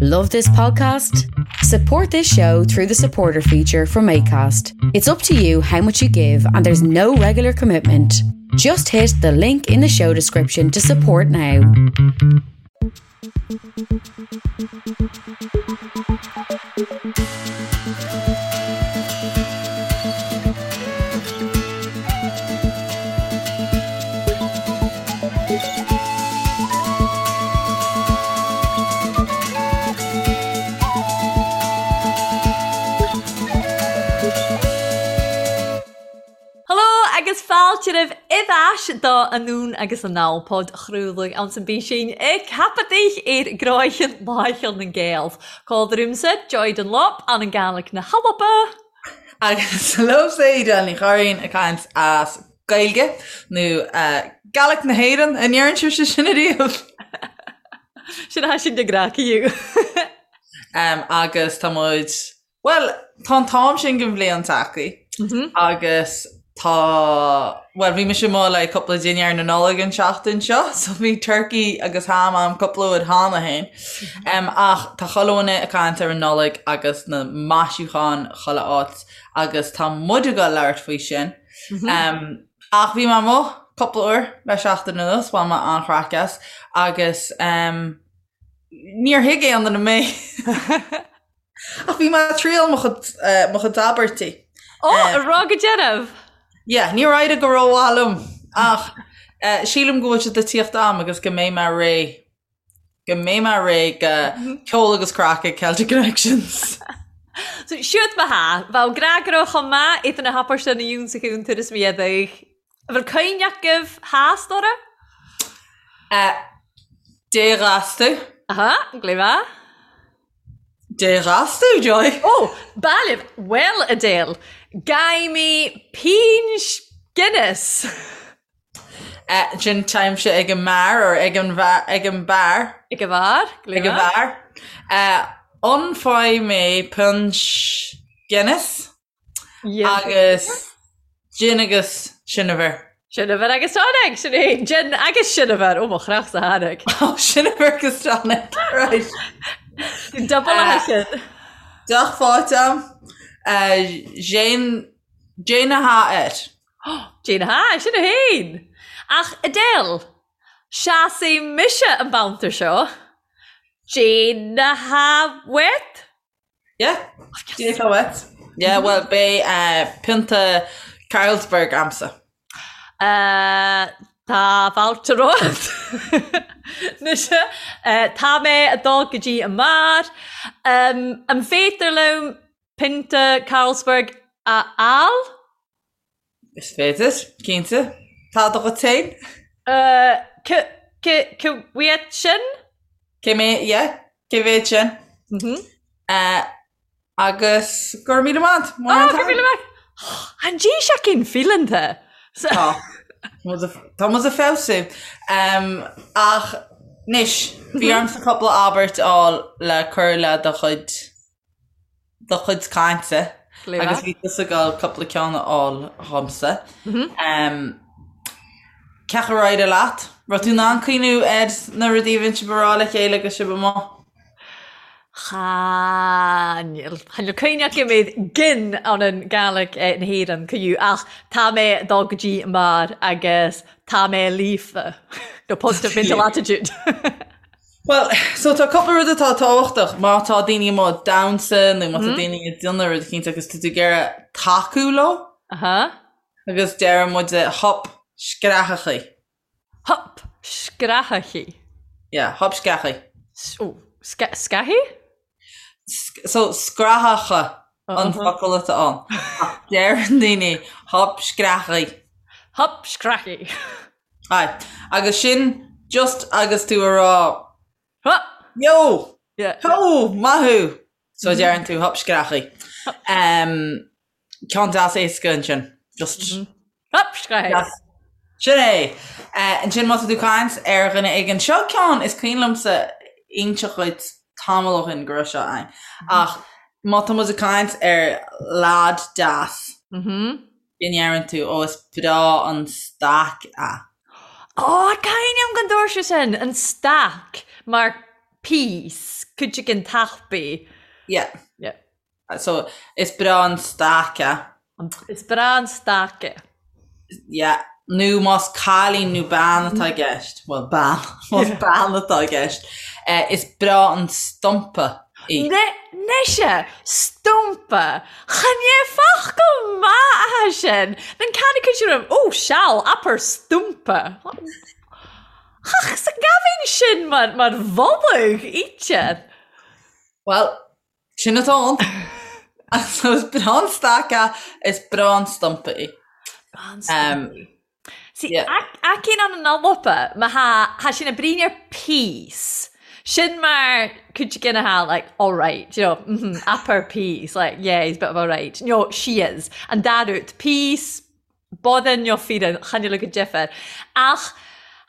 Love this podcast? Support this show through the supporter feature from ACAST. It's up to you how much you give, and there's no regular commitment. Just hit the link in the show description to support now. Hello agus fáilte roimh ais do Anonn agus Anall podchraoladh anns an bPísín ag ceapadh ar gcroicheann Láicheal na nGael. Còmhla riumsa Joy Dunlop ann an Gàidhlig na h-Alba. Agus liomsa Edel Ní Churraoin ag caint as Gaeilge nó Gaelic na hÉireann, an ndeireann sibhse sin ariamh? Sin a sin de ghnáth Agus tá muid, bhuel, tá an t-am sin den bhliain tagtha agus tá, bhuel, bhí mise amuigh le cúpla dinnéar na Nollag an tseachtain seo, so bhí turkey agus ham a'm cúpla uair cheana féin. Ach tá chuile dhuine ag caint ar an Nollaig agus na maisiúcháin chuile áit agus tá muid ag dul labhairt faoi sin. Ach bhí mé amuigh cúpla uair le seachtain anuas, bhain mé an-chraic as agus níor thuig aon duine mé. Ach bhí mé ag triail mo chuid, mo chuid abairtí. Ó, a rá go dearbh! Yeah, níor éirigh go rómhaith liom ach sílim go bhfuil siad ag tíocht a'm agus go mbeidh mé réidh Go mbeidh mé réidh do ceol agus craic ag Celtic Connections. So, siúd mo tha, bheadh gnáthrá chomh maith iad na hapáiste na yún sa chúntar is mé adaigh. An bhfuil cuimhne agaibh theas, Dora? Dé ghas tú. Aha, glé mhaith. Dé ghas tú, Joy. Ó, Bailibh, bhuel, Adele, Gaimí Pínn Guinness. Sin táimse ag an mbeár or ag an ag an beár. Ag an bheár? Ag an bheár. Ólfaidh mé puins Guinness agus gin agus seineabhar. Seineabhar agus tonic, sin é. Gin agus seineabhar, ó mo chreach sa tháinig. Ó, seineabhar agus tonic, right. Double a sin. Deoch faighte a'm. Jane a há air. Jane ha, sin a fhéin! Ach Adele, seasfaidh mise an babhta seo. Jane ha wet? Yeah, Jane ha wet. Yeah, well, beidh pionta Carlsberg a'msa. Tá fáilte romhat. Mise, tá mé ag dul go dtí an mbeár. An féidir liom pionta Carlsberg a fháil? Is féidir, cinnte. Tá do dhuit féin? C, c, cá mhéad sin? Cé mé, yeah, cé mhéad sin? Mhm. Agus go raibh míle maith. Ah, go raibh míle maith. An dtí sé cinn fileanta. Tá. Tá muid ag feabhsú. Ach anois, bhí ormsa cúpla abairt a fháil le cur le do chuid do chuid cainte agus bhí tusa ag dul cúpla ceann a fháil dhomsa. Cén chaoi ar éirigh leat? Raibh tú in ann cuimhniú ar na rudaí a bhíonn sibh a rá le chéile agus sibh amuigh? Chan eil. Chan eil cuimhne agam ar gin ann an Gàidhlig na hÉireann cuiú ach tá mé ag dul go dtí an mbeár agus tá mé líofa. No positive mental attitude. Bhuel, so tá cúpla rud atá tábhachtach má tá daoine amuigh ag damhsa nó má tá daoine ag déanamh rud eicínt agus tá tú ag iarraidh tacú leo. Aha. Agus deireann muid hup screathachaí. Hup screathachaí. Yeah, hup screathachaí. Ó, scaithí? So scrathacha an focal atá ann. Ach deireann daoine hup screathachaí. Hup screathachaí. Aye. Agus sin just agus tú a rá Hup! Yo! Yeah. Ho! Maith thú! So deireann tú hup screathachaí. Um, ceann deas éasca ansin. Just Hup screathachaí. Yes. Sin é! Uh, ansin má tá tú ag caint ar dhuine éigin seo ceann is cuimhin liomsa inseacht dhuit tamall ó shin go raibh seo ann. Ach má tá muid ag caint ar lad deas, go ndeireann tú, ó is breá an stack é. Ó, cuimhním gon dúirt sé sin, an stack, mar. piece, cuid den tapaidh. Yeah. Yeah. So, is breá an staic é. Is breá an staic é. Yeah. Nó más cailín nó bean atá i gceist, bhuel, bean, más bean atá i gceist, eh, is breá an stumpa í. Nise, stumpa! Chan é focal maith atá sin! Nan ceann acu sin raibh, oh, seal, abair stumpa. Ach, sa gabhainn sin mar, mar mholadh, íte. Bhuel, Sin atá ann. So is breá an staic é, is breá an stumpa í. Breá an stumpa í. See, aicín an an Alba, má tha, tha sin a brín ar piece. Sin mar cuid gin atá like, all right, you know, mm -hmm, upper piece, like, yeah, he's a bit of all right. No, she is. An dá rud, piece, Bodhan nó fíreann, chan eil go deifir. Ach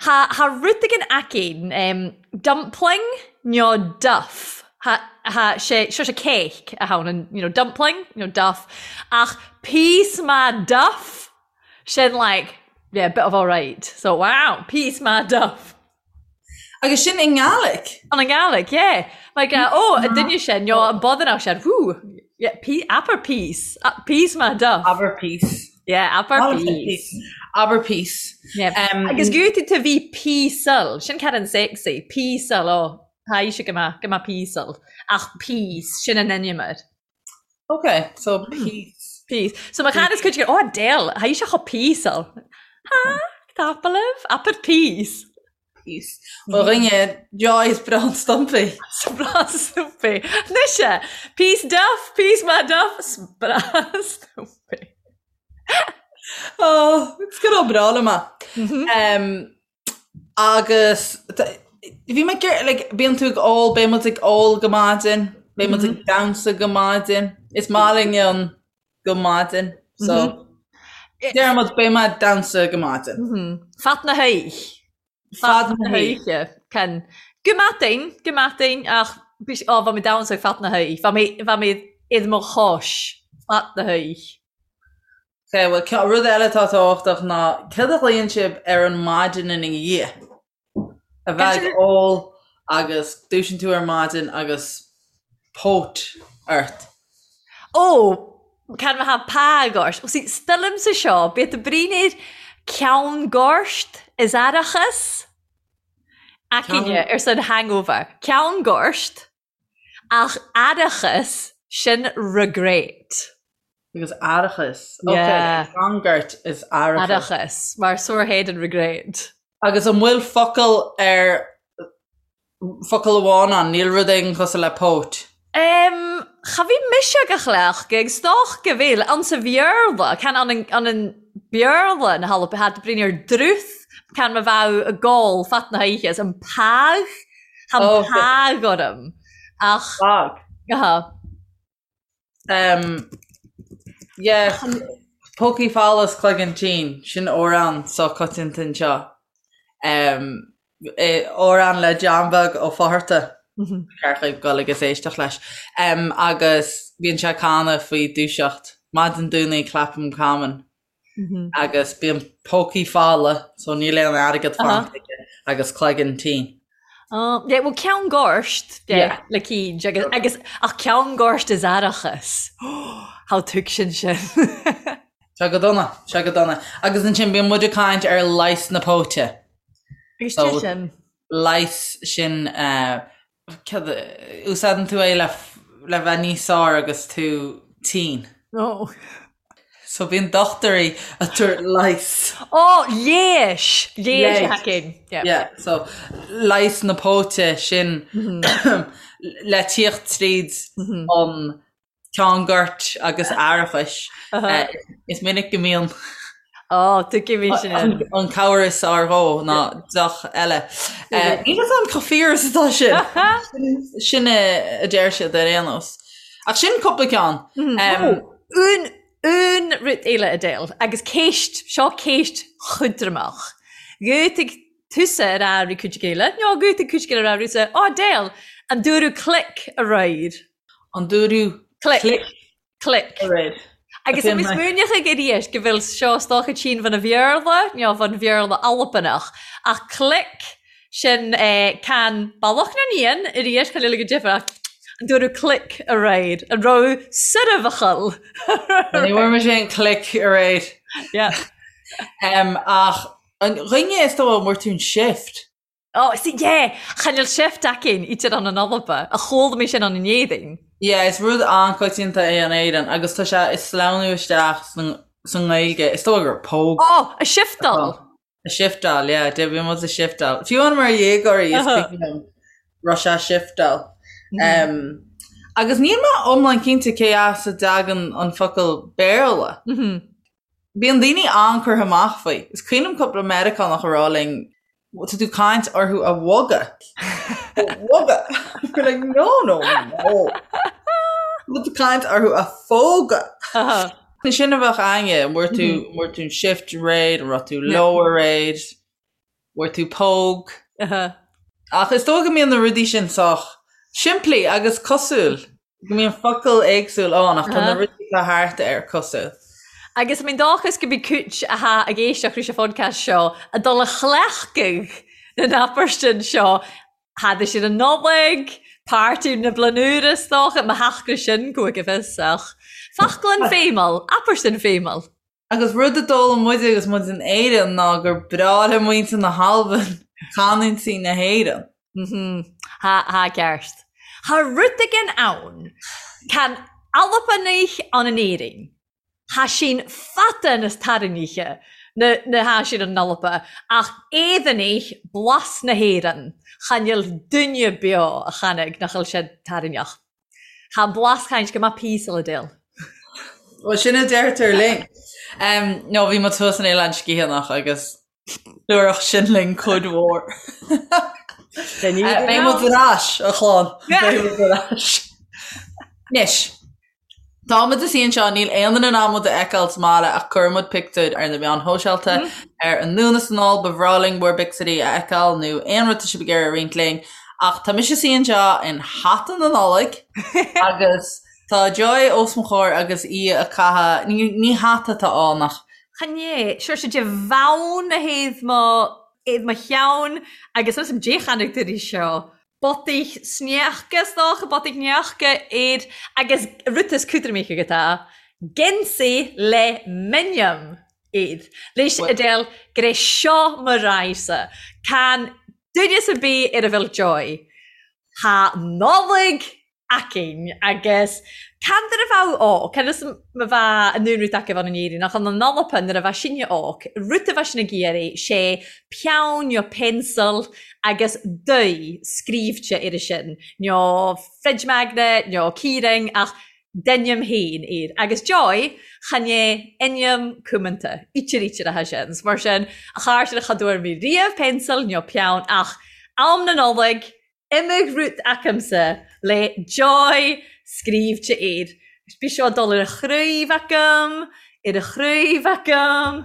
tha, tha rud againn aicín, em, dumpling nó duff. Tha, tha sé, seo sé cake a tha ann, an, you know, dumpling nó duff. Ach piece maith duff, sin like, yeah, bit of alright. So, wow, piece maith duff. Agus sin i nGàidhlig? An i nGàidhlig, yeah. Like, uh, oh, an duine sin, nó an bodhanach sin, whoo, yeah, pe abair piece, piece maith duff. Abair piece. Yeah, abair piece. Abair piece. Yeah. Um, Agus gúti tú bhí píosal, sin cad an sexy, píosal, oh, tá sé go maith, go maith píosal, ach piece, sin an ainm air. Ok, so piece. Piece. So má chan is cuid oh Adele, tha ise cho píosal. Ha, tapa libh, abair piece. Piece. Ó dhuine, joy is breá an stumpa í. 'S breá an stumpa í. Nise, piece duff, piece maith duff, 's breá an stumpa í. Oh, it's good old breá liom é. Um, Agus bhí mé ag iarraidh, like, bíonn tú ag ól, beidh muid ag ól go maidin, beidh muid ag damhsa go maidin, is maith linn an go maidin, so deir muid beidh mé ag damhsa go maidin. Fad na hoích. Fad na hoíche. Can, go maidin, go maidin, ach ó, bha mi damhsag fad na hoích, bha mi, bha mi id mo chois fad na hoích. Ok, bhuel, rud eile atá tábhachtach ná céard a ghlaonn sibh ar an maidin ina dhiaidh? A bheith ag ól agus dúisíonn tú ar maidin agus póit ort. Ó, can ma tha pàgh ort? Well, see, stilimse seo, bith a bruinir ceann goirt is aireachas. Aicíne ar son hangover. Ceann goirt. Ach aireachas, sin regret. Agus aireachas. Ok, Yeah. Ceann goirt is aireachas. Aireachas, mar sore head and regret. Agus an bhfuil focal ar, focal amháin ann, níl rud éigin cosúil le póit? Em, cha bhí mise ag a chleachtadh ag stoc go bhfuil, ann sa Bhéarla, can an an an Béarla na hAlba, had brin ar druth, can ma bheadh ag gol fad na hoíche, is an pàgh Tá an pàgh orm. Ach. Pàgh. Aha. Um, yeah, Pócaí folamh 's cloigeann tinn, sin amhrán sách coitianta anseo. Um, amhrán le John Beag Ó Fátharta. Ceart dhaoibh dul agus éisteacht leis. Um, agus bíonn sé ag canadh faoi dúiseacht. Maidin Domhnaigh clapham common. Agus bíonn pócaí folamh, so níl aon airgead fanta aige, agus cloigeann tinn. Oh, yeah, well, ceann goirt, yeah, le cíd, agus, agus, ach ceann goirt is aireachas. How tuig sin sin. Sé go dona, sé go dona. Agus ansin bíonn muid ag caint ar leigheas na póite. Agus so, sin. Leigheas sin, uh, Úsáideann tú é le le bheith níos fearr agus tú tinn. Oh. So bíonn dochtúirí ag tabhairt leigheas. Oh, léis! Léis a thacaíonn. Yeah. Yeah, so leigheas na póite sin le tíocht tríd an ceann goirt agus aireachais. Is minic go mbíonn Ó, tuigim sin. an cabhair is fearr dhó ná deoch eile. Níl fhios a'm chomh fíor is atá sin. Sin a deir siad ar aon nós. Ach sin cúpla ceann. Un, un rud eile Adele, agus ceist, seo ceist chudraimeach. Gheobhaidh tusa ar a' ri cuid eile, nó gheobhaidh cuid eile ar a' rusa, Ó Adele, an dúradh click aréir? An dúradh click. Click. Aréir. Agus tá mé smaoineach ag arís go bhfuil seo is dócha tinn bhun a Bhéarla, nó bhun Bhéarla Albanach, ach click, Sin can Bealach na nÉan arís, chan eil go deifir ach an dúradh click aréir, an raibh soirbheachal. Ní bhfuair mise aon click aréir. Yeah. Ach an dhuine is dóigh an bhfuair tú an shift? Oh, see, yeah, chan eil shift againn idir an an Alba, a chuala mé sin an in Éirinn. Yeah, is rud an-coitianta é in Éirinn agus tá sé ag sleamhnú isteach sa nGaeilge. Is dóigh gur póg. Oh, a shiftáil. A shiftáil, yeah, de bhí muid a shiftáil. Fiú amháin mar dhéagóirí is cuimhin liom raibh sé a shiftáil. Um, agus níl mé iomlán cinnte cé as a dtagann an focal Béarla. Bíonn daoine an-curtha amach faoi. Is cuimhin liom cúpla Meiriceánach a rá linn, tá tú caint orthu a bhogadh. A bhogadh. We're like, no, no, no. Tá tú caint orthu a phógadh. Sin a bheadh againne, an bhfuair tú, an bhfuair tú an shift aréir, an raibh tú leo aréir, bhfuair tú póg. Ach is dóigh go mbíonn na rudaí sin sách simplí agus cosúil. Go mbíonn focal éagsúil ann ach tá na rudaí atá thart air cosúil. Agus I mean dóchas go mbeidh cúit athá ag éisteacht leis an phodcast seo ag dul a chleachtadh na n-abairtin seo thada siad an Nollaig, páirtí na Bliana Úire is dócha, má theacht sin go go fios ach foclann feidhmeal, abairtin feidhmeal. Agus rud a d'fhoghlaim muide agus muid in Éirinn ná gur breá le muintir na hAlban canúintí na hÉireann. Tha, tha ceart. Tha rud éigin ann. Can Albanaich ann in Éirinn. Tha sinn fada nas tarraingthe na na tha sinn an Alba, ach Éireannaich blas na hÉireann, chan eil duine beo a chanaig nach eil siad tarraingneach. Tha an blas chaint go maith píosa le déil. Bhuel, sin a deirtear linn. No, bhí muid thuas in Oileán Sgitheanach agus dúradh sin linn cuid mhór. Beidh muid ar ais, a chlann. Beidh muid ar ais. Anois, Tá muid ina suí anseo, níl aon duine in ann muid a fheiceáil sa mbaile ach cuirfidh muid pictiúir ar na meáin shóisialta ar Anonn is Anall, ba bhreá linn bhur bpictiúirí a fheiceáil nó aon rud tá sibh ag iarraidh a roinnt linn. Ach tá mise ina suí anseo in hata na Nollag agus tá Joy os mo chomhair agus í ag caitheamh, ní, ní hata atá ann ach. Chan é, sure sé de bhonn a thaobh mo, thaobh mo cheann agus is am dé chonaic tú seo. Botaich sneachta is dócha, botaich neachta air agus rud is cúdraimíche agat é, geansaí le m'ainm air. Leis a deil gur é seo mo raidhse. Can duine ar bith ar a bhfuil Joy. Tha Nollaig againn agus can nuair a bheadh óg, can is ma bheadh an rud acu ann in Éirinn ach an Alba nuair a bheadh sinne óg, rud a bheadh sinn ag iarraidh sé peann nó pencil agus dath scríobhte air sin, nó fridge magnet nó keyring ach d'ainm féin air. Agus Joy, chan é ainm cumanta, ítear ítear atá sin. Mar sin, a chairde cha dtabhair mé riamh pencil nó peann ach am na Nollag, Imigh rud acamsa le Joy scríobhte air. Bhí seo ag dul ar a chraobh agam, ar a chraobh agam,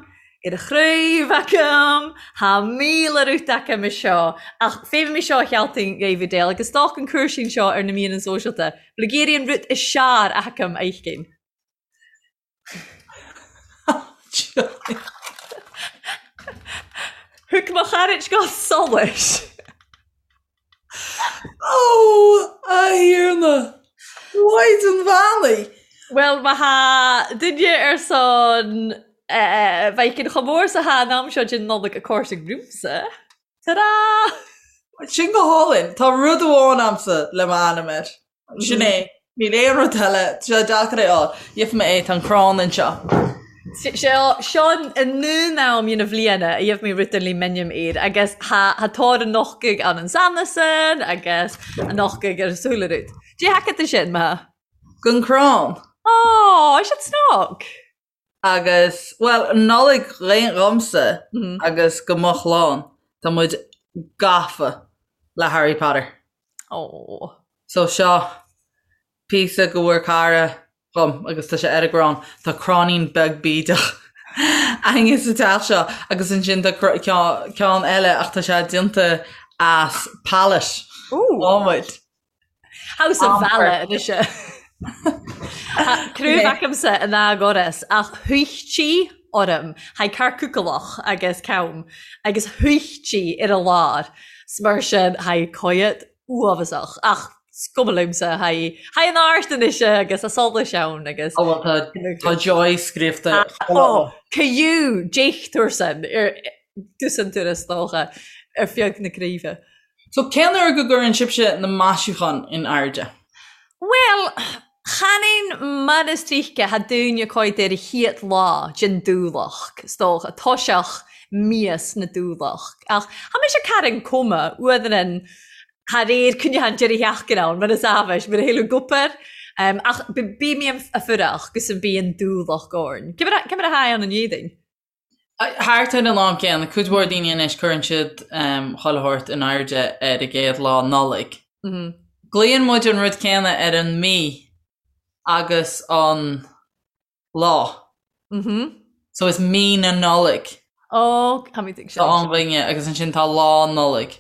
ar a chraobh agam, Thá 1000 rud agam i seo. Ach féadfaidh mé seo a chealtaigh David Dale agus stoc an cúirsín seo ar na míreanna sóisialta. Bhfuil ag iarraidh an rud is searr agam a fheiscint. Thug mo chairt go solais. Ó, a Thiarna! Mhaighdean Bheannaithe! Bhuel, má thá duine ar son bheidh chomh mór 's athá an am seo den Nollaig ag cóirsigh romhamsa. Ta-da! Sin go hálainn. Tá rud amháin a'msa le m'ainm air. Sin é. Níl aon rud eile. Tá sé deacair é a fháil. Gheobhaidh mé é. Tá an crann anseo. Seo seo an aon am dhen bhliana a gheibh mé rud le m'ainm air agus tha tha tóir an nochtaidh ann an sanasan agus an nochtaidh ar súile rud. Dé thaca tú sin, ma? Gon crann. Ó, is it snog? Agus, bhuel, Nollaig dhomsa agus go mo chlann, tá muid gafa le Harry Potter. Ó. So seo píosa go bhfuair cara dhom agus tá sé ar an gcrann. Tá cráinín beag bídeach againne sa teach seo agus ansin tá ceann eile ach tá sé déanta as pallet. Ooh. Adhmaid. House of Bhealach anois. Craobh acamsa in Ágoras ach thuichtí orm, thaidh carcúcalach agus cam, agus thuichtí ar a lár. 'S mar sin tha coimhead uabhasach ach 's cuma liomsa tha tha an àirt anois agus a solais ann agus Ó bhuel tá tá joy scríobhta Ó caillou déichtiúrsan ar dtús an turas dócha ar feadh na craoibhe. So cén uair go gcuireann sibhse na maisiúcháin in airde? Bhuel, chan aon mar is tríocha tha daoine coimhead ar a chiad lá den dúlach, 's dócha, toiseach míos na dúlach. Ach tha mise carn cuma, uadhrann thar aer coinneach an deireadh sheachtaine ann, mar is amhais, mar a thuilleadh gupair. Ach bí mé a fuireach gus an bí an dúlach orn. Cé mar a tha ann an Éadaoin? Thart ar an am céanna, cuid mhór daoine anois cuireann siad chuile shórt in airde ar an gcéad lá Nollaig. Glaonn muid an rud céanna ar an mí agus an lá. So is mí na Nollag. Ó, táimid ag sin. Tá an bhainne agus ansin tá lá Nollag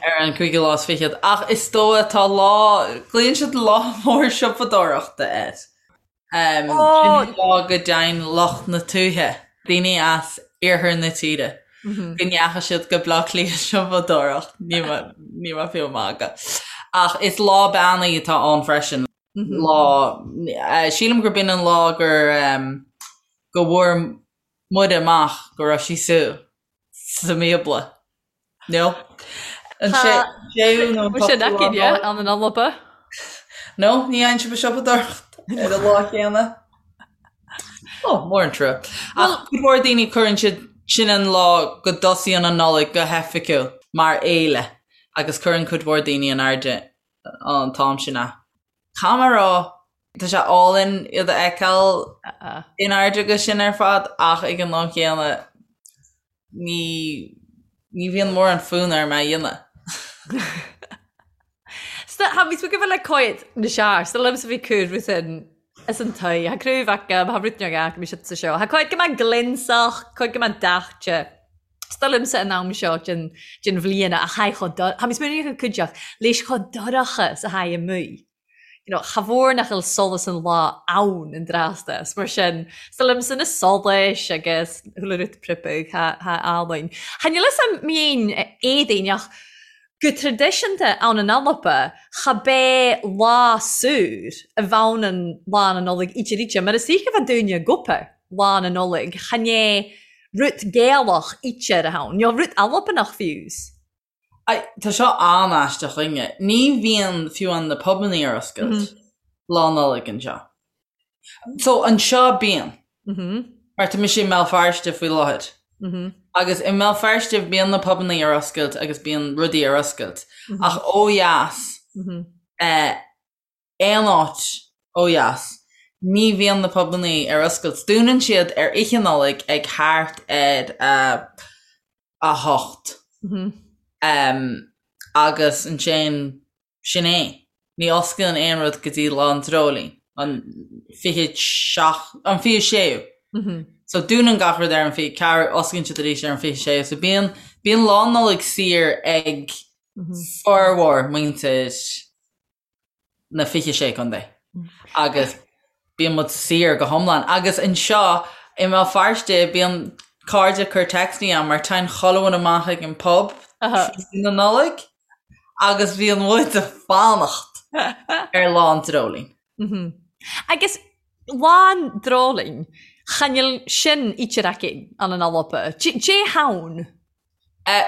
ar an cúigiú lá is fichead. Ach is dóigh tá lá, glaonn siad lá mór siopadóireachta air. Sin an lá go dtéann lucht na tuaithe, daoine as iarthar na tíre, go ndeachaigh siad go Baile Átha Cliath siopadóireacht, níl mé fiú ag magadh. Ach is lá beannaithe atá ann freisin. Lá, sílim gurb in an lá gur go bhfuair Muire amach go raibh sí sa sa mBíobla. No? An séú nó an t-ochtú lá Nollag? An an Alba? No, ní dhéanann sibh siopadóireacht ar an lá céanna. Ó, mór an trua. Ach cuid mhór daoine cuireann siad sin an lá go dtosaíonn an Nollaig go hoifigiúil mar fhéile agus cuireann cuid mhór daoine in airde an t-am sin é. Caithfidh mé a rá, tá sé álainn iad a fheiceáil in airde agus sin ar fad ach ag an am chéanna ní ní bhíonn mórán fonn orm é a dhéanamh. Tha mi ag le coimhead na sear, 's liomsa bhí cur rud in is an toigh. Tha craobh agam, tha rud beag agam sa seo. Tha coimhead go maith glionsach, coimhead go maith daite. 'S dóigh liomsa an am seo den den bhliain a tha chomh do-, tha mi smaoineamh go cuideachd leis chomh dorcha 's a tha amuigh. You know, cha mhór nach bhfuil solas an lá ann an dtráth 's mar sin, 's dóigh liomsa na solais agus chuile rud pripeadh, tha tha álainn. Cha níl fhios a'm mian Éadaoin ach go traidisiúnta ann in Alba cha b'é lá saor a bheann an Lá na Nollag íte ríte mar is oíche bheith dúinne gupa Lá na Nollag chan é rud Gaelach íte ar a thonn, nó rud Albanach fiús. Ai, tá seo an-aisteach chugainne. Ní bhíonn fiú amháin na pubannaí ar oscailt Lá Nollag anseo. So, anseo bíonn. Mar tá mise i mBéal Feirste faoi láthair. Agus i mBéal Feirste bíonn na pubannaí ar oscailt agus bíonn rudaí ar oscailt. Ach ó dheas, aon áit ó dheas, ní bhíonn na pubannaí ar oscailt. Dúnann siad ar Oíche Nollag ag thart ar a hocht. Agus ansin sin é. Ní osclaíonn aon rud go dtí Lá an Dreoilín, an 27, an 26ú. So dúnann gach rud ar an 24, osclaíonn siad arís ar an 26ú. So bíonn, bíonn Lá Nollag saor ag formhór muintir na 26 contae agus bíonn muid saor go hiomlán. Agus anseo i mBéal Feirste bíonn cairde ag cur téacsanna agam mar téann chuile dhuine amach ag an pub tráthnóna na Nollag agus bíonn muid ag fanacht ar Lá an Dreoilín. Agus Lá an Dreoilín, chan fhuil sin íte aici an an Alba. Dè tha ann?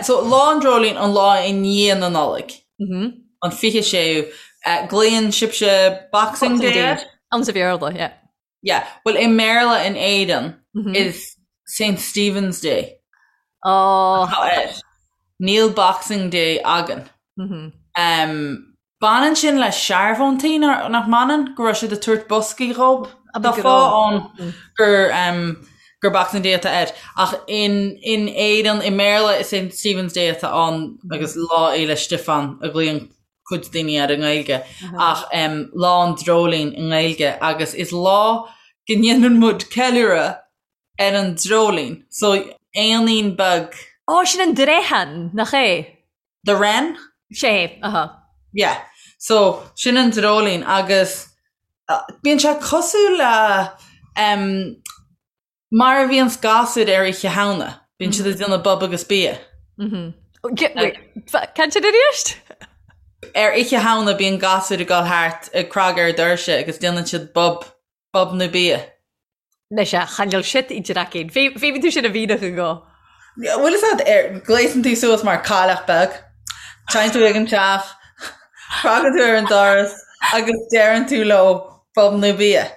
So, Lá an Dreoilín, an lá i ndiaidh na Nollag, an 26ú, glaonn sibhse Boxing Day air? Ann sa Bhéarla, yeah. Yeah, bhuel i mBéarla in Éirinn is Saint Stephen's Day atá air. Níl Boxing Day againn. Baineann sin le searbhóntaí, nach mbaineann? Go raibh siad ag tabhairt boscaí dhób? Tá fáth ann gur gur Boxing Day atá air. Ach in in Éirinn, i mBéarla is Saint Stephen's Day atá ann agus Lá Fhéile Stiofáin a ghlaonn cuid daoine air i nGaeilge. Ach Lá an Dreoilín i nGaeilge agus is lá go ndéanann muid ceiliúradh ar an dreoilín. So éanín beag. Ó, sin an dreichean, nach é? The Wren? Sé, aha. Yeah. So, sin an dreoilín agus bíonn sé cosúil le em mar a bhíonns gasúir ar Oíche Shamhna. Bíonn siad ag déanamh bob agus bia. Mhm. Can sin arís? Ar Oíche Shamhna bíonn gasúir ag dul thart ag cnagadh ar doirse agus déanann siad bob, bob nó bia. Anois a, chan eil shit idir aicinn. Feumaidh tú sin a mhìneachadh dho. Bhfuil fhios a'd ar, gléasann tú suas mar cailleach beag, téann tú ag an teach, cnagann tú ar an doras agus deireann tú leo bob nó bia.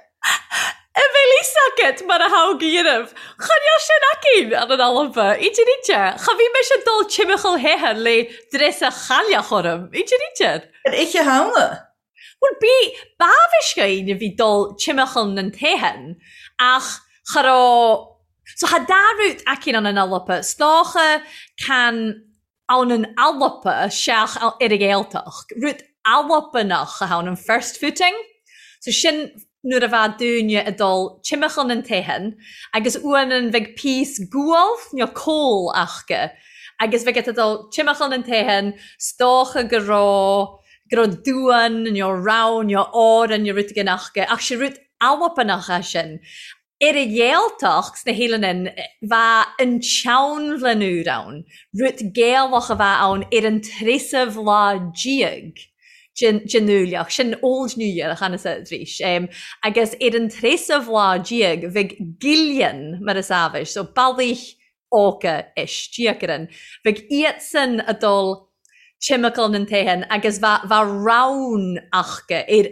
A bheil fhios agat mar a tha gu dheunamh. Chan eil sin againn ann an Alba. Idir idir. Cha bhith mise dol timcheall theithe le dreasa chailleach orm. Idir idir. Ar Oíche Shamhna? Bhuel, bí, b'amhais dhaoine a bhí dul timcheall nan teithin ach cha raibh, so tha dà rud againn ann an Alba, 's dòcha can ann an Alba seach ar an Ghaeltacht, rud Albanach a tha ann, an first footing, so sin nuair a bheadh daoine ag dul timcheall nan teithin agus uairean bheadh píos gual nó coal aca agus bheadh ag dul timcheall nan teithin 's dócha go raibh go raibh duan nó rann nó òran nó rud éigin aca ach sé rud Albanach é sin. Ar an Ghaeltacht sna h-Eileanan bheadh an tSeanbhlain Úr ann, rud Gaelach a bheadh ann ar an treasamh lá déag den Fhuailleach, sin Old New Year a chan-sa arís, agus ar an treasamh lá déag bheadh Gillean mar is amhais, so bealaigh óga istigh orainn. Bheadh iadsan a' dul timcheall nan teithin agus bheadh bheadh rann aca ar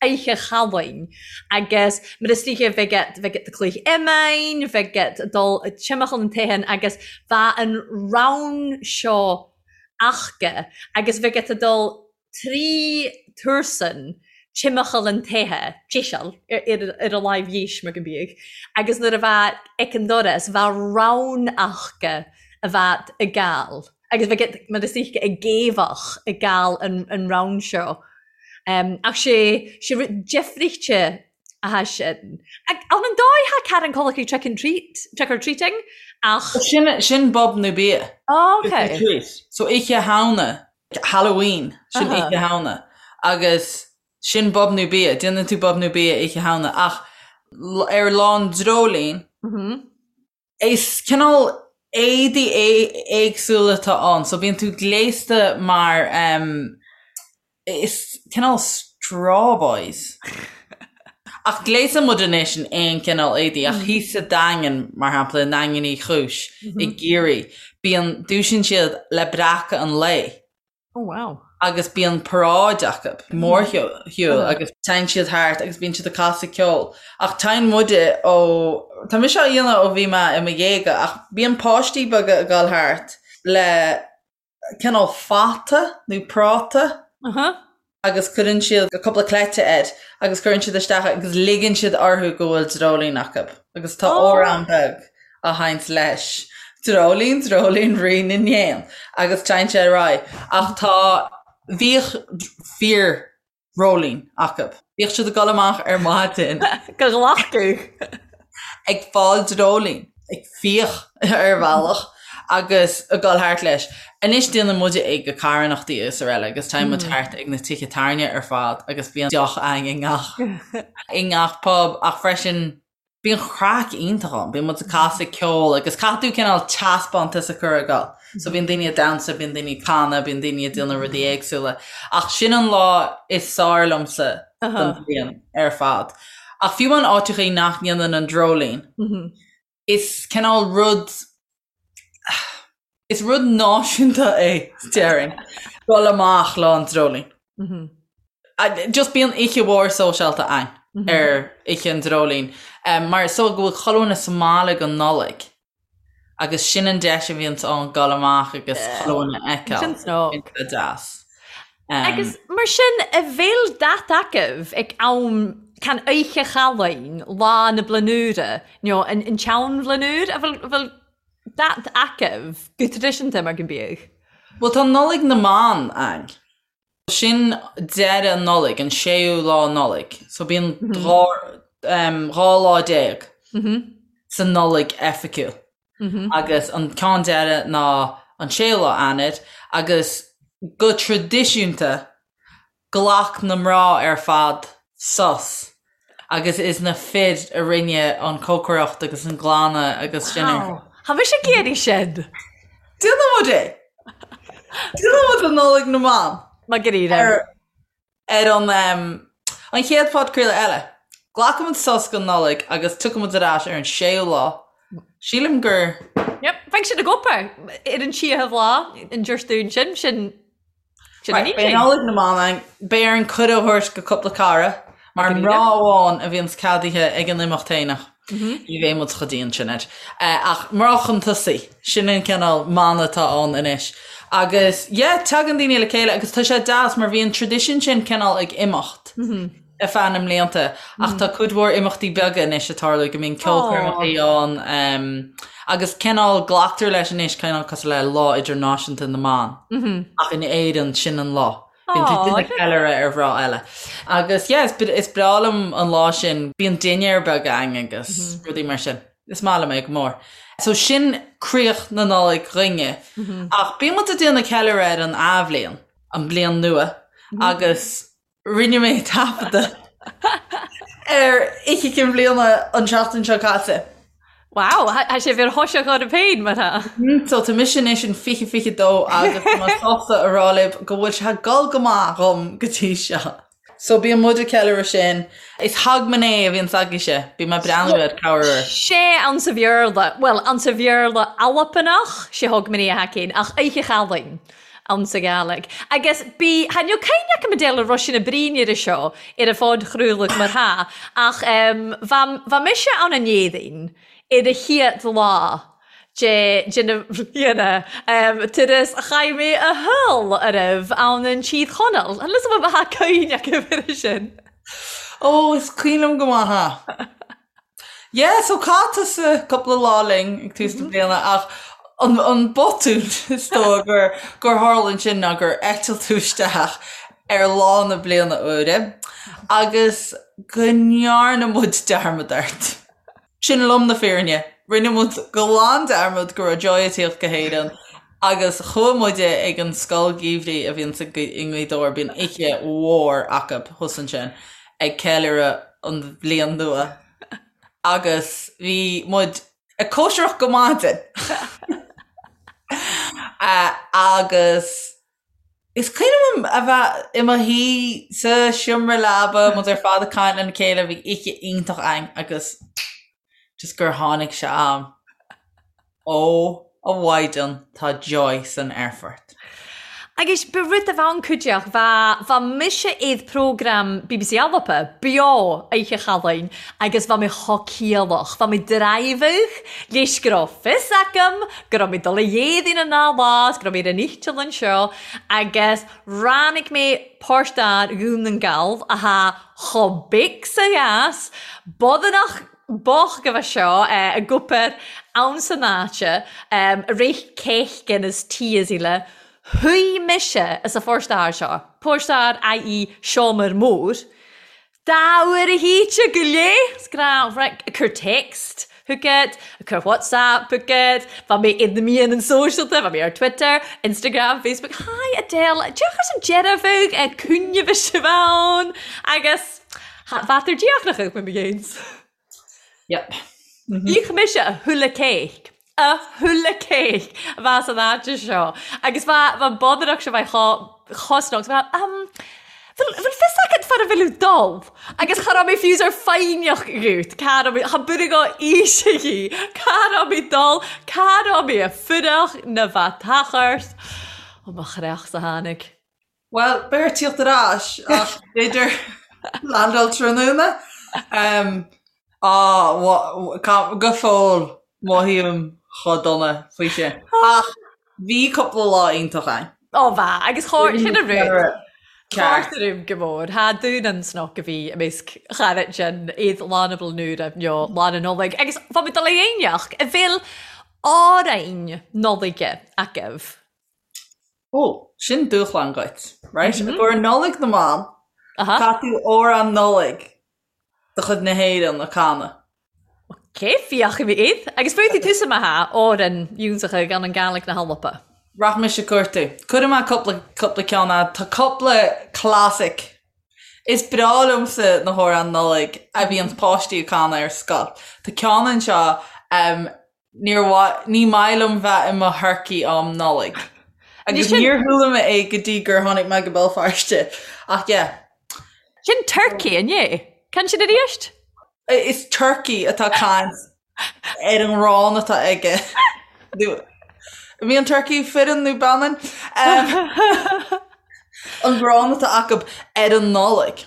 Oidhche Chalainn agus mar is dóiche bheadh iad bheadh iad ag cluich iomáin, bheadh iad a' dul timcheall nan teithin agus bheadh an rann seo aca agus bheadh iad a' dul 3 tursan timcheall an toighe, deiseal, ar a láimh dheis mar go mbíodh, agus nuair a bheadh ag an doras bheadh rann aca a bheadh ag gabhail agus bheadh iad mar is dóiche ag géabhach ag gabhail an rann seo. Ach sé sé rud deifrichte atá sin. Ann an dóigh thá Karen Collicky trick and treat, trick or treating ach. Sin sin bob nó bia. Oh ok. So Oíche Shamhna Halloween, sin Oíche Shamhna, agus sin bob nó bia, déanann tú bob nó bia Oíche Shamhna, ach ar Lá an Dreoilín, is cineál éadaí éagsúla atá ann, so bíonn tú gléasta mar Is cineál straw boys. Ach gléasann muid anois in aon cineál éadaí, ach thíos sa Daingean, mar shampla, i nDaingean Uí Chúis, i gCiarraí, bíonn, dúisíonn siad le breacadh an lae. Oh wow. Agus bíonn paráid acu, mórshiúl, agus téann siad thart agus bíonn siad ag casadh ceoil. Ach téann muide ó, tá mise á dhéanamh ó bhí mé i mo dhéaga, ach bíonn páistí beaga ag dul thart le cineál fata nó práta agus cuireann siad cúpla cleite air agus cuireann siad isteach é agus ligeann siad orthu go bhfuil dreoilín acu agus tá amhrán beag á sheinnt leis, Dreoilín, dreoilín, rí na n-éan agus téann sé ar aghaidh. Ach tá, bhíodh fíor dreoilín acu. Bhíodh siad ag dul amach ar maidin. Go ghlacadh. Ag fáil dreoilín, ag fiach ar bhealach agus ag dul thart leis. Anois déanann muide é go carthanachtaí is araile agus téann muid thart ag na tithe tábhairne ar fad agus bíonn deoch againn i ngach i ngach pub ach freisin Bíonn craic iontach ann, bíonn muid ag casadh ceoil agus caithfidh tú cineál teaspántas a chur ag dul. So bíonn daoine ag damhsa, bíonn daoine ag canadh, bíonn daoine ag déanamh rudaí éagsúla. Ach sin an lá is fearr liomsa den bhliain ar fad. Ach fiú amháin áiteachaí nach ndéanann an dreoilín, is cineál rud, Is rud náisiúnta é, déarfainn, dul amach Lá an Dreoilín. Just bíonn oíche mhór sóisialta ann ar Oíche an Dreoilín mar is dóigh go bhfuil chuile dhuine sa mbaile don Nollaig agus sin an deis a bhíonns ann dul amach agus chuile dhuine a fheiceáil. Sin snug. Sin deas. Agus mar sin, a bheil dat agaibh ag am can Oíche Chalainn, Lá na Bliana Úire, nó an tSeanbhliain Úr, a bhfuil Dat agaibh go traidisiúnta mar go mbíodh. Bhuel tá Nollaig na mBan ann. Sin deireadh Nollaig, an séú lá Nollaig. So bíonn 12 lá sa Nollaig oifigiúil. Agus an ceann deireadh ná an séú lá Eanáir agus go traidisiúnta Ghlac na mná ar fad sos agus is na fir a rinne an cócaireacht agus an glanadh agus sin ar. Wow, tha mise ag iarraidh sin! Déanann muid é! Déanfaidh muid an Nollaig na mBan. Margarita. Ar ar an an chéad phodchraoladh eile. Glacfaidh muid sos don Nollaig agus tiocfaidh muid ar ais ar an séú lá. Sílim gur. Yep, bheidh sin ag obair ar an tríochadh lá an Déardaoin sin, sin sin an Right, beidh Nollaig na mBan ann. Beidh orainn cuireadh a thabhairt go cúpla cara, mar mná amháin a bhíonns ceadaithe ag an imeacht fhéineach. Ní bheidh muid chomh dian sin air. Ach mná chun tosaigh, sin an cineál mana atá ann anois. Agus yeah, tagann daoine le chéile agus tá sé deas mar bhí an tradition sin cineál ag imeacht ar feadh na mblianta ach tá cuid mhór imeachtaí beaga anois ag tarlú go mbíonn ceolchoirmeacha ann agus cineál glactar leis anois cineál cosúil le Lá Idirnáisiúnta na mBan ach in Éirinn sin an lá. Bíonn tú ag déanamh ceiliúradh ar mhná eile. Agus yeah, is is breá liom an lá sin, bíonn dinnéar beag againn agus rudaí mar sin. Is maith liom é go mór. So sin críoch na Nollag dhúinne. Ach bíonn muid ag déanamh ceiliúradh ar an athbhliain, an bhliain nua, agus rinne mé taifeadadh ar Oíche Chinn Bliana an tseachtain seo caite. Wow, tá sé bhíor thoiseach orm féin mar tá. So tá mise anois in 2022 agus tá mé sásta a rá libh go bhfuil sé ag dul go maith dhom go dtí seo. So bíonn muid ag ceiliúradh sin. Is Hogmanay a bhíonns agaibhse, bíonn mé ag breathnú ar cabhair ort. Sé ansa Bhéarla, bhuel, ansa Bhéarla Albanach, sé Hogmanay a thacaíonn, ach Oíche Chalainn. Ansa Gàidhlig. Agus bí, tha níl cuimhne agam a deil a raibh sin a brí ar seo ar a phodchraoladh mar tha, ach bha, bha mise ann an Éadaoin ar a chéad lá de, de na bhliana, turas a chaith mé a shaol ariamh ann an Tír Chonaill. An lios bha cuimhne agam ar sin. Ó, is cuimhin liom go maith é. Yeah, so chaith tusa cúpla lá linn ag tús na bliana ach an, an botún is dóigh gur, gur tharla ansin ná gur eitil tú isteach ar lá na bliana úire agus go ndearna muid dearmad ort. Sin lom na fírinne. Rinne muid glan dearmad go raibh Joy ag tíocht go hÉirinn agus chuaigh muide ag an scoil gheimhridh a bhíonns i nGaoth Dobhair, bíonn oíche mhór acu thuas ansin. ag ceiliúradh an bhliain nua agus bhí muid ag cóisireacht go maidin agus is cuimhin liom a bheith i mo shuí sa seomra leaba, muid ar fad ag caint lena chéile, bhí oíche iontach againn agus just gur tháinig sé am. Ó, a Mhaighdean, tá Joy san aerfort. Agus ba rud a bheadh cuideach, bha, bha mise id prógram bbc Alba beo Oidhche Chalainn agus bha mé cho ciallach, bha mé draighbheadh leis go raibh fios agam go raibh mé dul a Dhéadaoin an dá lá is go raibh mé ar an eiteall anseo agus ráinig mé páirt d'fhear Dhún nan Gall athá cho big 's a dheas, bodanach B'oth go bheith seo i gcupar ann san áite a rith céithghin is tí is uile. Shuigh mise as a phóstaer seo, póstaer IE seomra mór, dá uair a híte go léith, is gnách, right, ag cur text chugat, ag cur WhatsApp chugat, bheadh mé i na meáin sóisialta, bheadh mé ar Twitter, Instagram, Facebook, Hi Adele, deoch as an deireadh bheadh ag cúinne bhí sibh ann agus Bheadh ar díochnach ag mo ghéins. Yep. Ích mise a thuilleadh céic. A thuilleadh céic a bheas san áit seo. Agus bheadh an bodaireacht seo bheith chosnach. Bheadh, um, bhfuil fios agat far a bhfuil dul? Agus cha raibh mé fiú ar foighneach gut. Cá raibh mé, cha b'fhíor go aois í. Cá raibh mé dul? Cá raibh mé a fuireach na bheadh tachairt? Ó mo chreach sa tháinig. Bhuel, beidh ort tíocht ar ais ach b'fhéidir landáil tráthnóna. Á, go fóill mothaím chomh dona faoi sin. Ach bhí cúpla lá iontach ann. Ó bha, agus chóir, sin an rud. Ceart go mór. Tha dún an snoc a bhí i measc charaid sin, iad Lá na Bliana Úire nó Lá na Nollag. Agus bha mi dul a dhéineach, a bhfuil àrainn Nodlaige agaibh. Ó, sin dúshlán dhuit, right? I gcomhair Nollaig na mBan, caithfidh tú amhrán Nollag de chuid na hÉireann a chanadh. Ok, féachfaidh mé iad. Agus féadfaidh tusa má thá, amhrán iontacha gan an Gàidhlig na hAlba. Rachaidh mise ag cuartú. Cuirfidh mé cúpla, cúpla ceann a'd. Tá cúpla classic. Is breá liomsa na hamhráin Nollag a bhíonns páistí ag canadh ar scoil. Tá ceann anseo, Níor mhaith, ní maith liom bheith i mo thurcaí um Nollaig. Agus níor chuala mé é go dtí gur tháinig mé go Béal Feirste. Ach yeah. Sin turkey, an é? Can sin arís? Is turkey atá caint ar an ngrán atá aige. Bhí an turkey fireann nó baineann? An grán atá acu ar an Nollaig.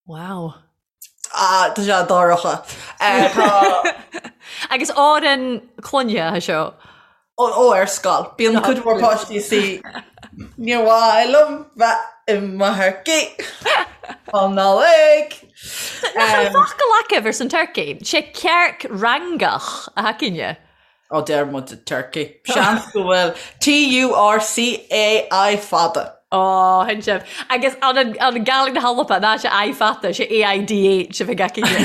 Wow. Ah, tá sé dorcha. Tá. Agus árann clainne atá seo. Ó, ó, ar scoil. Bíonn cuid mhór páistí sí Níor mhaith liom bheith i mo thurcaí um Nollaig. Nach an focal agaibh ar son turkey? Sé cearc rangach atá againne. Ó deir muid turkey. Seans go bhfuil T-U-R-C-A-I fada. Ó, shin sibh. Agus an an Gàidhlig na hAlba, ná sé I fada, sé A-I-D-H a bheidh againne.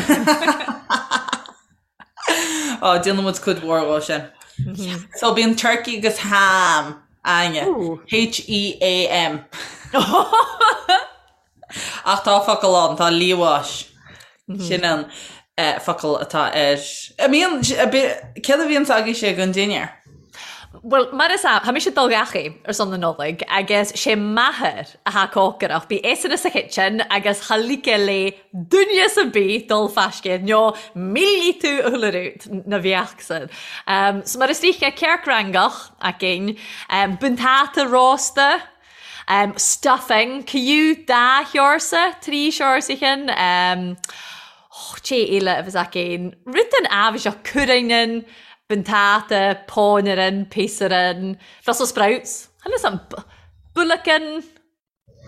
Ó, déanann muid cuid mhór dhó sin. So bíonn turkey agus ham againne. H-E-A-M. Ach tá focal ann, tá liamhás. Sin an focal atá air. An mbíonn, céard a bhíonns agaibhse don dinnéar? Bhuel, mar is ea, tá mise ag dul gach ar son na Nollag agus sé m'athair athá ag cócaireacht. Bí eisean sa chitchen agus cha ligfeadh le duine ar bith dul fascadh nó millfidh tú a chuile rud na bheadh san. So mar is dóiche, cearc rangach againn, buntáta rósta, Stuffing, ciú dá sheorsa, trí sheorsa chinn, och, cé eile a bheas againn? Rud den áibhéiseach, cuireann, buntáta, pónairean, píosaran, Brussels sprouts, chan fhios a'm, buaileacan,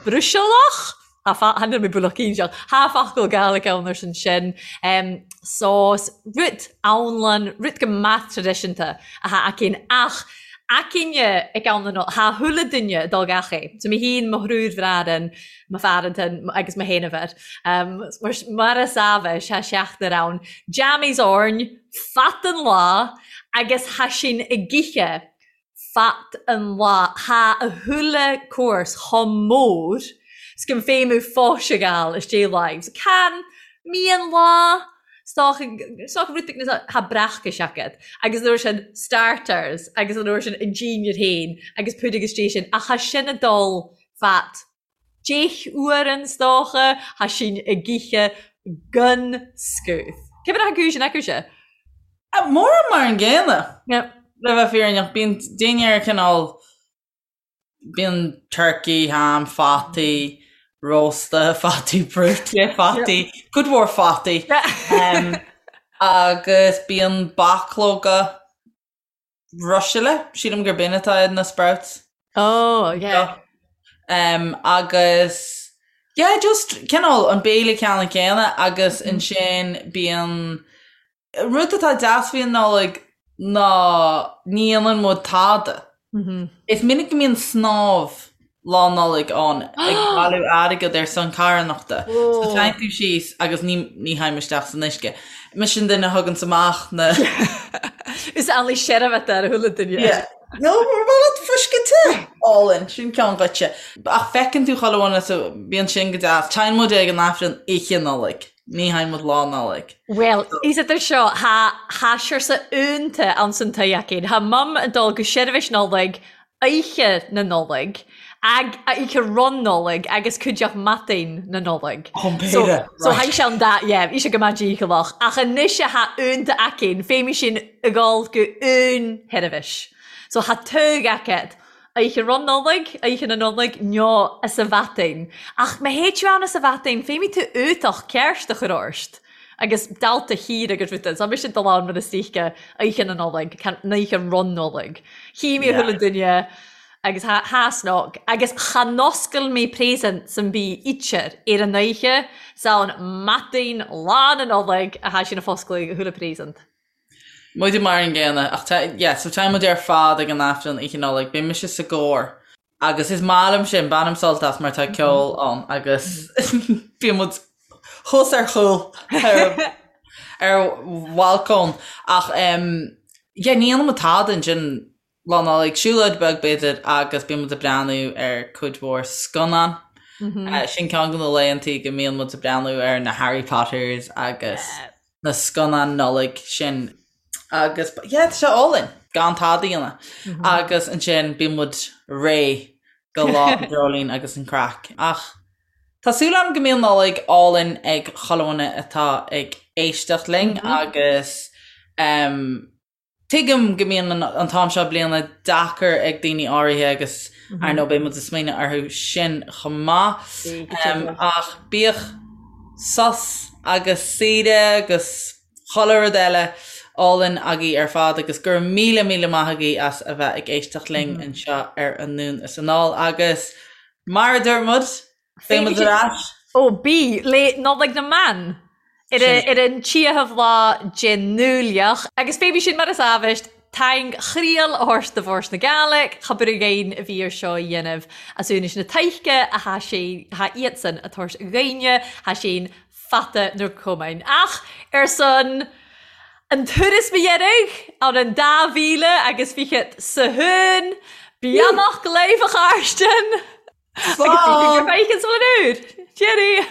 Bruisealach? Chan fhuil mé buaileacainseach, Thá focal Gàidhlig ann ar son sin. Sós, rud anlann, rud go maith traidisiúnta athá againn ach againne ag am na Nollag, thá chuile duine ag dul gach é. So mé féin, mo thriúr bhraran, mo phearantan agus mo sheanmháthair. Mar, mar is ábhais, thá seachtar ann. Jammies orainn, fad an lá agus thá sinn ag ithe fad an lá. Thá a chuile course chomh mór 's go bhféadhadh fós a ghabháil istigh láimh. So can mian lá, 's dócha, 's dócha rud beag thá breacais agat agus an uair sin starters agus an uair sin an dinnéar féin agus púdar istigh sin ach thá sin ag dul fad 10 uairean 's dócha, thá sinn ag ithe gan scuth. Cé mar atá cúis an acu-se? Mórán mar an gcéanna, le bheith fírinneach. Bíonn dinnéar cineál, bíonn turkey, ham, fataí, rósta, fataí brúite, fataí, cuid mhór fataí. Agus bíonn bachlóga ruisile, sílim gur b'in atá in na sprouts. Oh, yeah. Um, agus yeah, just cineál an béile ceannann céanna agus ansin bíonn rud atá deas faoi an Nollaig ná ní dhéanann muid tada. Is minic go mbíonn snámh Lá Nollag ann ag bailiú airgead ar son carthanachta. So téann tú síos agus ní ní théim isteach san uisce. Mise an duine a thuganns amach na. Is amhlaidh seirbheat ar a chuile duine. Yeah. No, mar bhfuil leat fuisce te! Álainn, sin ceann dhuitse. Ach feiceann tú chuile dhuine so bíonn sin go deas. Téann muid ag an Aifreann oíche Nollag. Ní théann muid Lá Nollag. Bhuel, is idir seo, thá thá siorsa iúnta ann san toigh againn. Thá Mum ag dul go seirbhís Nollag oíche na Nollag, ag, oíche ron Nollag agus cuideachd madain na Nollag. Oh, So, b'fhéidir, so right. thaidh sé an dá, yeah, bhí sé go maith dícheallach. Ach anois thá iúnta againn, féimidh sinn ag dul go aon sheirbhís. So thá togha agat, oíche ron Nollag, oíche na Nollag, nó as a mhadain. Ach má théid tú ann as a mhadain, féimidh tú uchtach ceart a chur ort. Agus dalta thiar agus ruda, so mise ag dul ann mar is oíche, oíche na Nollag, an oíche ron Nollag. Chí mé chuile duine agus tha, tha snoc, agus cha n-oscail mé presents an bith ítear ar an oíche, 's ann madain lá na Nollag a tha sinn a foscladh chuile present. Muide mar an gcéanna, ach tá, yeah, so tá muid ar fad ag an Aifreann oíche Nollag, beidh mise sa gcór. Agus is maith liom sin, bainim sult as mar tá ceol ann agus bíonn muid thuas ar chúl ar ar bhalcóin ach yeah ní dhéanann muid tada ansin Lá Nollag, siúlóid beag b'fhéidir agus bíonn muid ag breathnú ar cuid mhór scannán. Sin ceann de na laethantaí go mbíonn muid ag breathnú ar na Harry Potters agus na scannáin Nollag sin. Agus yeah tá sé álainn gan tada a dhéanamh. Agus ansin bíonn muid réidh. Go Lá an Dreoilín agus an craic. Ach tá súil agam go mbíonn Nollaig álainn ag chuile dhuine atá ag éisteacht linn agus tuigim go mbíonn an t-am seo bliana deacair ag daoine áirithe agus ar ndóigh beidh muid ag smaoineamh orthu sin chomh maith. Ach bíodh sos agus saoire agus chuile rud eile álainn agaibh ar fad agus go raibh míle míle maith agaibh as a bheith ag éisteacht linn anseo ar Anonn is Anall agus mar a dúirt muid, beidh muid ar ais. Ó bí, le Nollaig na mBan ar ar an tríochadh lá den Nollaig agus fé sin mar is amhaist taing chriail a thabhairt do Bhòrd na Gàidhlig, cha bith againn a bhí ar seo a dhéanamh as úinis na taice a tha sé, tha iadsan a tabhairt dhaoine, tha sé'n fata nar cumainn. Ach ar son an turas mo dheiridh ann an dá mhíle agus fichead sa hún, beannacht leibh a Chàrstainn! Agus bhí gur feicin sa bhliain úr! Cheerio!